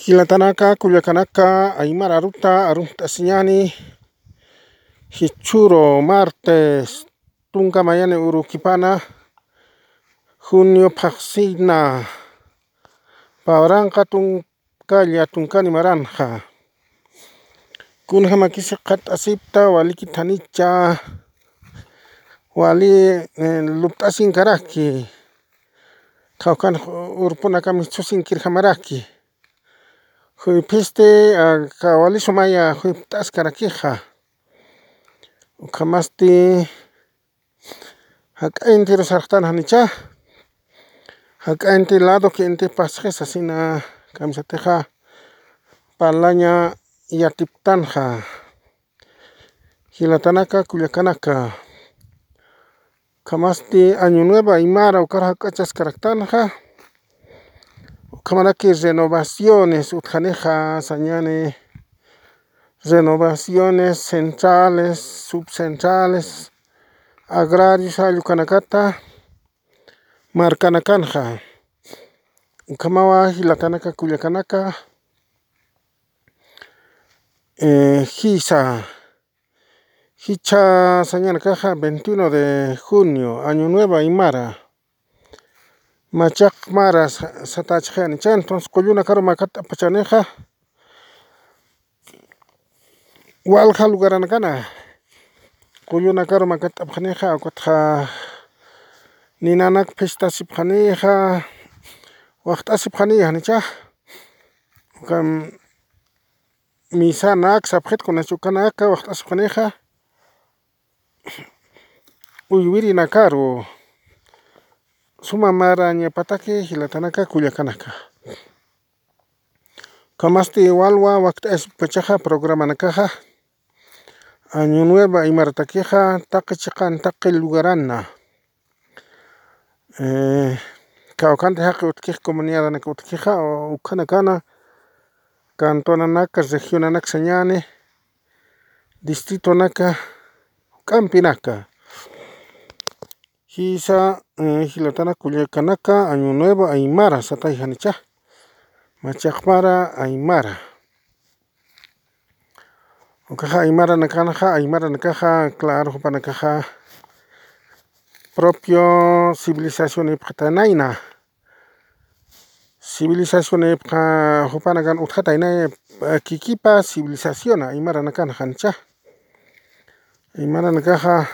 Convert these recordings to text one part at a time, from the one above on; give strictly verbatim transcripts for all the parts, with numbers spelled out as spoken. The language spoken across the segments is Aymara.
Jilatanaka, kullakanaka, aymar aruta arumt'asiñani, jichhüru martes tunka mayani urukipana, junio phaxsina, pawranqa tunkalla tunkani maranxa. Kunjamakisi qhat'asipta, walikit janicha, wali, eh, lupt'asinkaraki, qhawkan urpunakami chhusinkirjamaraki. Juyphisti, ah, kawalisumaya juypt'askarakixa. Ukhamasti jak'a intiru sarxtan janicha. Jak'a inti lado que inti pasxi sasina kamisatixa parlaña yatiptanxa. Jilatanaka, kullakanaka. Ukhamasti Año Nuevo Aymara ukar jak'achaskaraktanxa. Ukhamaraki renovaciones utjanixa sañani, renovaciones centrales, subcentrales, agrarios, jall ukanakata markanakanxa. Ukhamawa jilatanaka, kullakanaka. Eh, jisa, jichha sañanakaxa veintiuno de junio, Año Nuevo Aymara. Machaq mara sa-, satachxi janicha, entonces qullunakaru makat'apxanixa. Walja lugaranakana qullunakaru makat'apxanixa, ukatxa ninanak phishtasipxanixa, waxt'asipxanixa janicha. Ukham misanak sapxit kunachu ukanaka waxt'asipxanixa, uywirinakaru suma marañapataki jilatanaka, kullakanaka. Ukhamasti walwa wakt'ayasipkachaxa programanakaxa, Año Nuevo Aymaratakixa taqi chiqan taqi lugarana. Eh, kawkhanti jaqi utjkix, comunidadanak utjkixa, ukhanakana cantonanaka, regionanaka sañani, distritonaka, juk'ampinaka. Jisa, eh, jilatanaka, kullakanaka, Año Nuevo Aymara satay janicha. Machaq mara aymara. Ukaxa aymaranakanxa, aymaranakaxa, claro, jupanakaxa propio civilización ipxatanayna. Civilización ipxa jupanakan utjataynay, eh, kikipa civilización aymaranakanxa janicha. Aymaranakaxa,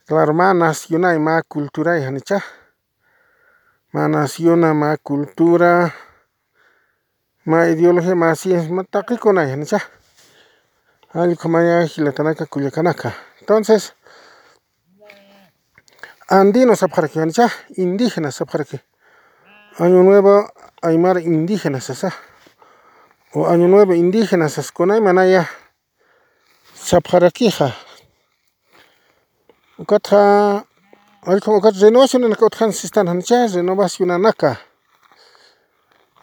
claro, mä nacionay, mä culturay janicha. Mä naciona, mä cultura, mä ideología, mä ciencia, mä taqikunay janicha. Jall ukhamaya jilatanaka, kullakanaka. Entonces, andino sapxaraki janicha, indígena sapxaraki. Año Nuevo Aymara indígena sasa. O Año Nuevo indígena saskunay manaya sapxarakixa. Ukatxa, allqum ukat renovacionanaka utjan sistan janicha, renovacionanaka.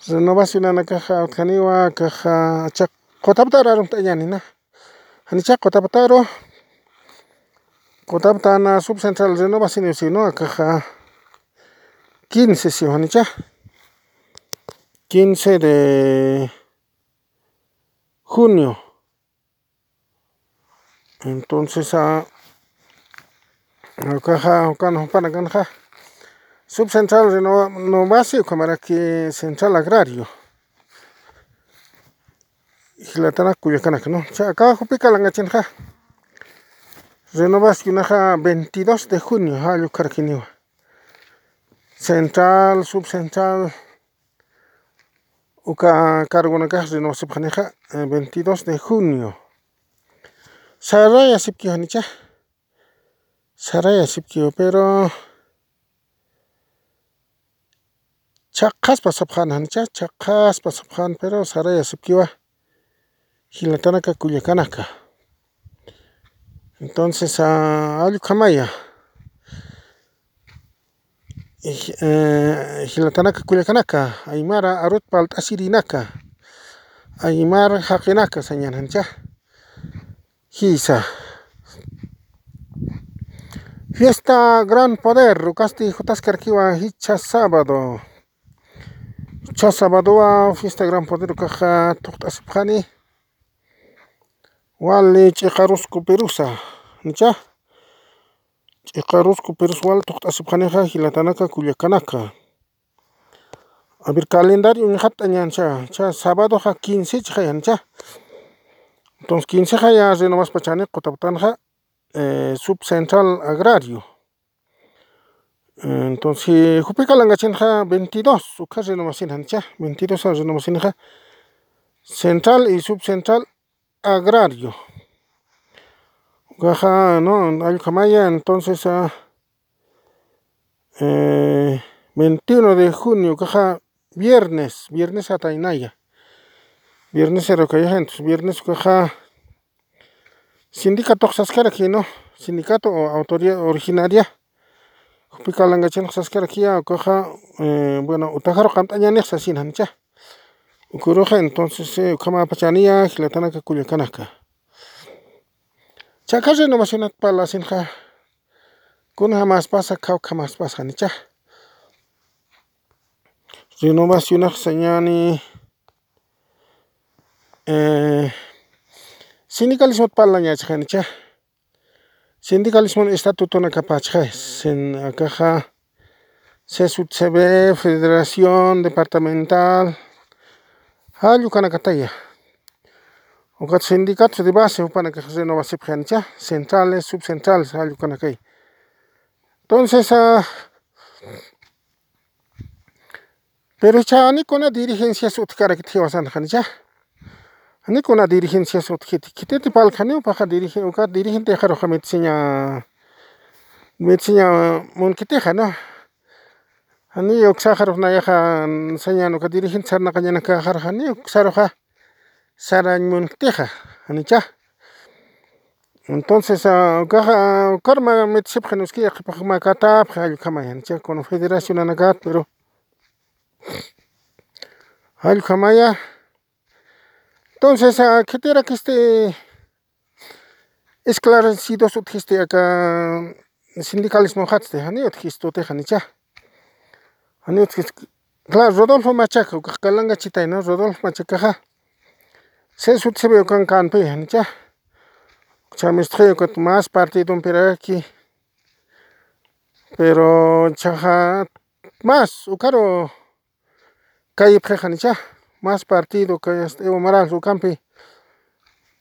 Renovacionanakaxa utjaniwa, akaxa, chaq, qutaptaru arumt'añanina. Janicha qutaptaru, qutaptana subcentral renovación sino, akaxa, quince, sí, janicha. Quince de junio. Entonces, ah, ukaxa, ukan jupanakanxa, subcentral reno-, renovasi, ukhamaraki central agrario. Jilatanaka, kullakanaka, ¿no? Cha, aka jupi kalangachinxa. Renovacionaxa veintidós de junio, jall ukarakiniwa. Central, subcentral, uka cargonakax renovasipxanixa, eh, veintidós de junio. Sarayasipkiwa janicha. Sarayasipkiwa, pero chhaqhaspa sapxan janicha, chhaqhaspa sapxan, pero sarayasipkiwa. Jilatanaka, kullakanaka. Entonces, ah, jall ukhamaya. Eh, jilatanaka, kullakanaka, aymara arut palt'asirinaka, aymar jaqinaka sañan janicha. Jisa. Fiesta Gran Poder, ukasti jutaskarakiwa jichha sábado. Cha sabadowa fiesta Gran Poder ukaxa thuqt'asipxani. Wali ch'iqarusku pirusa, nicha. Ch'iqarusku pirus wal thuqt'asipxanixa jilatanaka kullakanaka. A ver, calendario uñxatt'añancha, cha sabadoxa quince chixaya, nicha. Entonces quince jaya renovaspachani qutaputanxa, eh, subcentral agrario. Entonces, jupi kalangachinxa veintidós, uka renovasin janicha, veintidós renovasinxa central y subcentral agrario. Ukaxa, no, allkamaya, entonces, ah, eh, veintiuno de junio, ukaxa viernes, viernes ataynaya. Viernes erokayaxa, entonces, viernes ukaxa, sindicato saskaraki, ¿no? Sindicato o autoridad originaria. Jupi kalangachin saskarakiya, ukaxa, eh, bueno, utajaru qamt'añanix sasin janicha. Ukuruxa, entonces, eh, ukhamapachaniya, jilatanaka kullakanaka. Chaka renovacionat parlasinxa. Kuna jamaspasa, kawkha jamaspasa, janicha. Renovacionax sañani, eh, sindicalismot parlañachaxa, janicha. Sindicalismon estatutonakapachxa, sin, akaxa, C S U T C B, Federación Departamental, jall ukanakataya. Ukat sindicatos de base, jupanakax renovasipxi, janicha, centrales, subcentrales, jall ukanakay. Entonces, ah, pero cha, jani kuna dirigencias utjkarakit jiwasan, janicha. Jani kuna dirigencias utjkiti, khititi parlkaniw, ukaxa dirige-, uka dirigente jaruxa mitsiña, mitsiña munkitixa, ¿no? Jani uksaxarux nayaxa sañan uka dirigente sarnaqañanakaxarux, jani uksaruxa sarañ munkitixa, janicha. Entonces, ah, ukaxa, ah, ukarma mitsipxi, nuski, yaqhipax mä katapxi, jall ukhamaya, janicha, confederacionanakat, pero jall ukhamaya. Entonces, ah, khitirakisti esclarecidos utjisti aka sindicalismo jatsti, jani utjistu utji, janicha. Jani utjisti, claro, Rodolfo Machaca, ukax kalangachitay, ¿no? Rodolfo Machacaxa C S U T C B ukan kanpi, janicha. Ch'amistxi ukat más partidompiraki. Pero chaxa más, ukaru kayipxi, janicha, más partido, kay hasta Evo Morales ukampi.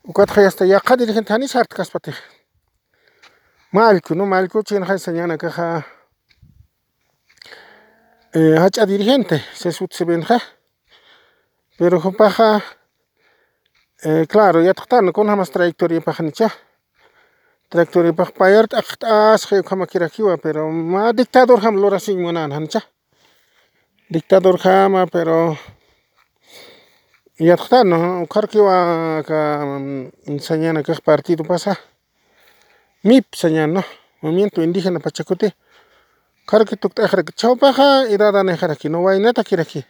Ukatxa hasta yaqha dirigente jani sartkaspatix. Mallku, ¿no? Mallku chinxa sañanakaxa, eh, jach'a dirigente, C S U T C B nxa. Pero jupaxa, eh, claro, yatxtan, kunjamas trayectoriapax, janicha. Trayectoriapax payar t'aqt'asxi ukhamakirakiwa, pero mä dictadorjam lurasiñ munan, janicha. Dictadorjama, pero yatxtan, ¿no? Ukharkiwa aka, mm, sañanakax partidopasa. MIP sañan, ¿no? Movimiento Indígena Pachakuti. Ukharki tukt'axaraki, chawpaxa edadanixaraki, ¿no? Waynatakiraki.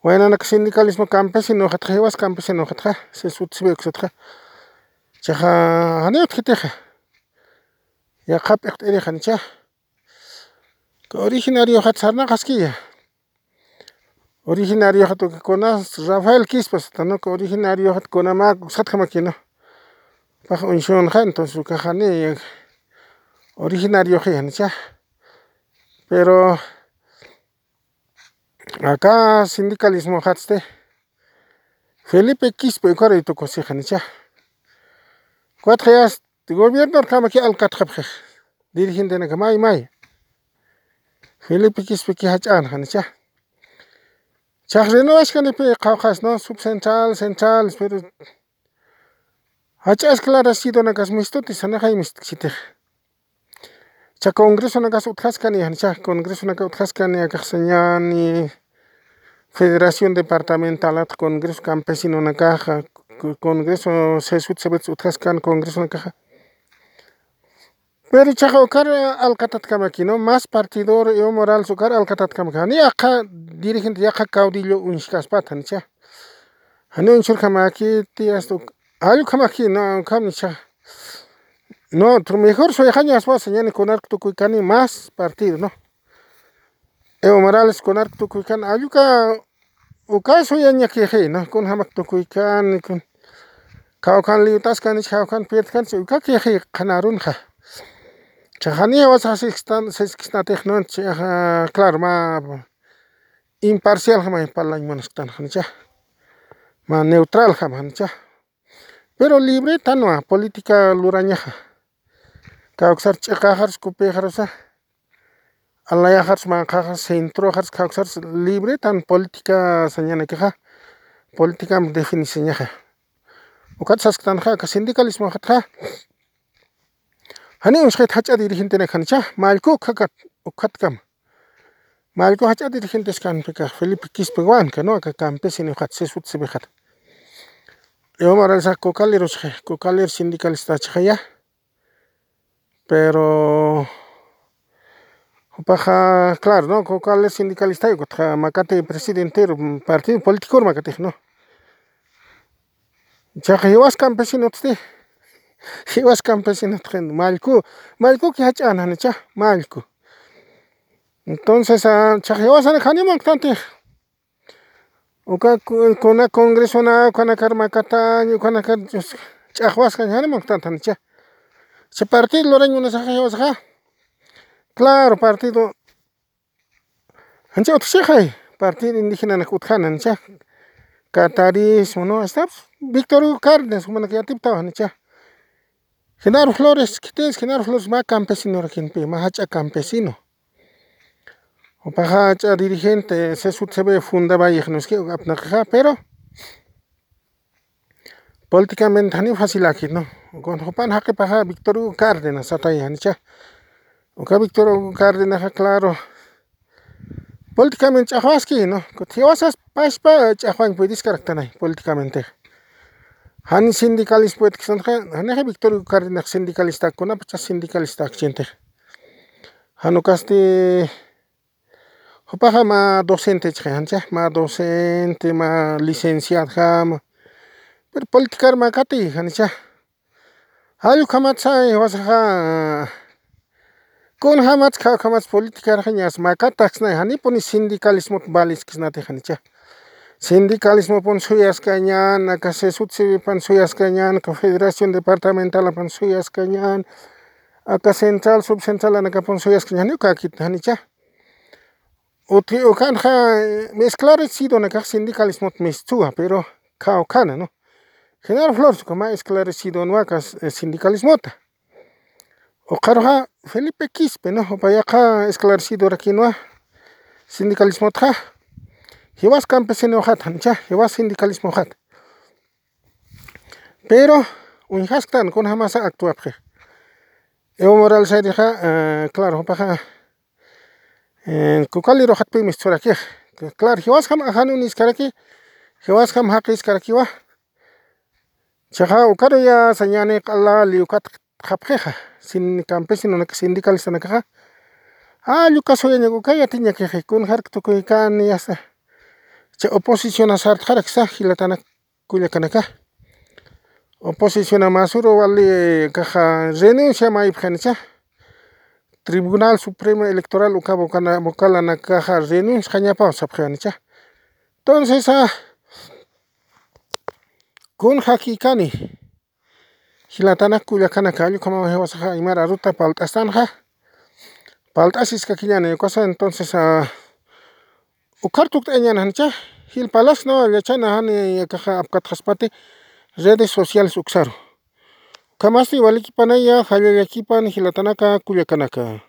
Waynanak sindicalismo campesino jatxa, jiwas campesino jatxa, C S U T C B uksatxa. Chaxa, jani utjitixa. Yaqha p'iqt'irix, janicha. Uka originarioxat sarnaqaskiya. Originarioxat uka kunas Rafael Quispe sata, ¿no? Uka originarioxat kunamak uksatjamaki, ¿no? Pax uñsunxa, entonces ukaxani originarioxi, janicha. Pero aka sindicalismo jatsti Felipe Quispe ukaruy tukusi, janicha. Ukatxa yast gobiernorjamaki alkatxapxi. Dirigentenaka may may. Felipe Quispeki jach'an, janicha. Chax renovaskanipi qhawqhas, ¿no? Subcentral, central, pero jach'a esclarecidonakas mistuti, sanixay mistkchitix. Cha congresonakas utjaskani, janicha, congresonaka utjaskani, akax sañani Federación Departamentalat, Congreso Campesinonakaxa, co-, Congreso C S U T C B utjaskan congresonakaxa. Pero chaxa ukar alkatatkamaki, ¿no? Más partidor Evo Morales ukar alkatatkamaki. Jani yaqha dirigente, yaqha caudillo uñjkaspat, janicha. Jani uñsurjamakiti, hasta uk-, jall ukhamaki, ¿no? Ukham, nicha. No, otro mejor suyxañaspa, sañani kunark tukuykani más partido, ¿no? Evo Morales kunarak tukuykan, alluka uka suyañakixi, ¿no? Kunjamak tukuykan, kun kawkan liyutaskanich, kawkan pirdkanich, uka kixi qhanarunxa. Chajani wasaxa siskistan, siskisnatix, ¿no? Chaja, claro, mä imparcial jama parlañ munasktan, janicha. Mä neutral jama, janicha. Pero libre tanwa política lurañaxa. Kawksar ch'iqaxars, kupixarusa. Alayaxars, manqaxars, centroxars, kawksars libre tan política sañanakixa. Política definisiñaxa. Ukat sasktanxa, aka sindicalismo xatxa. Jani uñsxit jach'a dirigentenak janicha, mallku ukhakat, ukhatkama. Mallku jach'a dirigentes kanpika, Felipe Quispe Huanca, ¿no? Aka campesino xat, sesut sebexat. Evo Morales cocalero, cocalero sindicalista chajaya. Pero jupaxa, claro, ¿no? Cocalero sindicalista, ukatxa makati presidentero, partido político makatix, ¿no? Chaqa jiwas campesinotsti. Jiwas campesinot, mallku, mallku ki jach'an, janicha, mallku. Entonces, ah, chaqa jiwasan jani manqtantix. Uka ku-, kuna congresona, ukanakar makatañ, ukanakar ch'axwaskañ, jani manqtantanicha. Cha partido lurañ munasaxa jiwasaxa. Claro, partido. Janicha utjchixay, partido indígenanak utjana, janicha. Catarismo, ¿no? Hasta Víctor Hugo Cárdenas, jumanak yatiptawa, janicha. Genaro Flores, khitis Genaro Flores mä campesinorakinpi, mä jach'a campesino. Jupaxa jach'a dirigente, sesut sebey fundawayix, ¿no? Es que apnaqixa, pero políticamente jani facilakit, ¿no? Con jupan jaqipaxa Víctor Hugo Cárdenas satay, janicha. Uka Víctor Hugo Cárdenaxa, claro. Políticamente ch'axwaski, ¿no? Kut jiwasas paspa ch'axwañ puediskaraktanay políticamente. Jan sindicalismo puedksanxa, janixa Víctor Cárdenas sindicalista, kunapacha sindicalista akchintix. Jan ukasti, jupaxa mä docente chixay, jancha, mä docente, mä licenciado jama. Pero politicar mä kati, janicha. Jall ukhamatsa jiwasaxa, kunjamatsa, ukhamatsa politicar jañas makataksnay, janipuni sindicalismot valiskisnati, janicha. Sindicalismopun suyaskañan, aka sesut sebepan suyaskañan, aka federación departamentalapan suyaskañan, aka central, subcentralanakapun suyaskañan, jani ukakit, janicha. Uti ukanxa, eh, esclarecidonakax sindicalismot mistuwa, pero kawkhana, ¿no? Genaro Flores uka mä esclarecidonwa aka, eh, sindicalismota. Ukxaruxa Felipe Quispe, ¿no? Jupayaxa esclarecidorakinwa sindicalismotxa. Jiwas campesinoxat, janicha, jiwas sindicalismoxat. Pero uñjasktan, kunjamasa actuapxi. Evo Morales ayrixa, eh, claro, jupaxa, eh, cocaleroxatpi misturakix. Claro, jiwasjam ajanun iskaraki, jiwasjam jaqiskarakiwa. Chaxa ukaruya sañani q'ala liw ukatxapxixa, sin campesinonak sindicalistanakaxa. Jall uka suyañak uka yatiñakixi, kunjarak tukuykan, ya está. Cha oposición sartxaraksa, jilatanak kullakanaka. Oposición masuru wali kaxa renuncia maypxanicha. Tribunal Supremo Electoral uka vocana-, vocalanakaxa renunciañapaw sapxanicha. Entonces, ah, kun jakikani. Jilatanak kullakanaka, jall ukhamaw jiwasaxa aymar aruta palt'astanxa. Palt'asiskakiñani, ukasa, entonces, ah, ukhar tukt'añan janicha, jilpalas no, yachana jani akaxa apkatxaspati redes sociales uksaru. Ukhamasti walikipanaya, jallallakipan, jilatanaka, kullakanaka.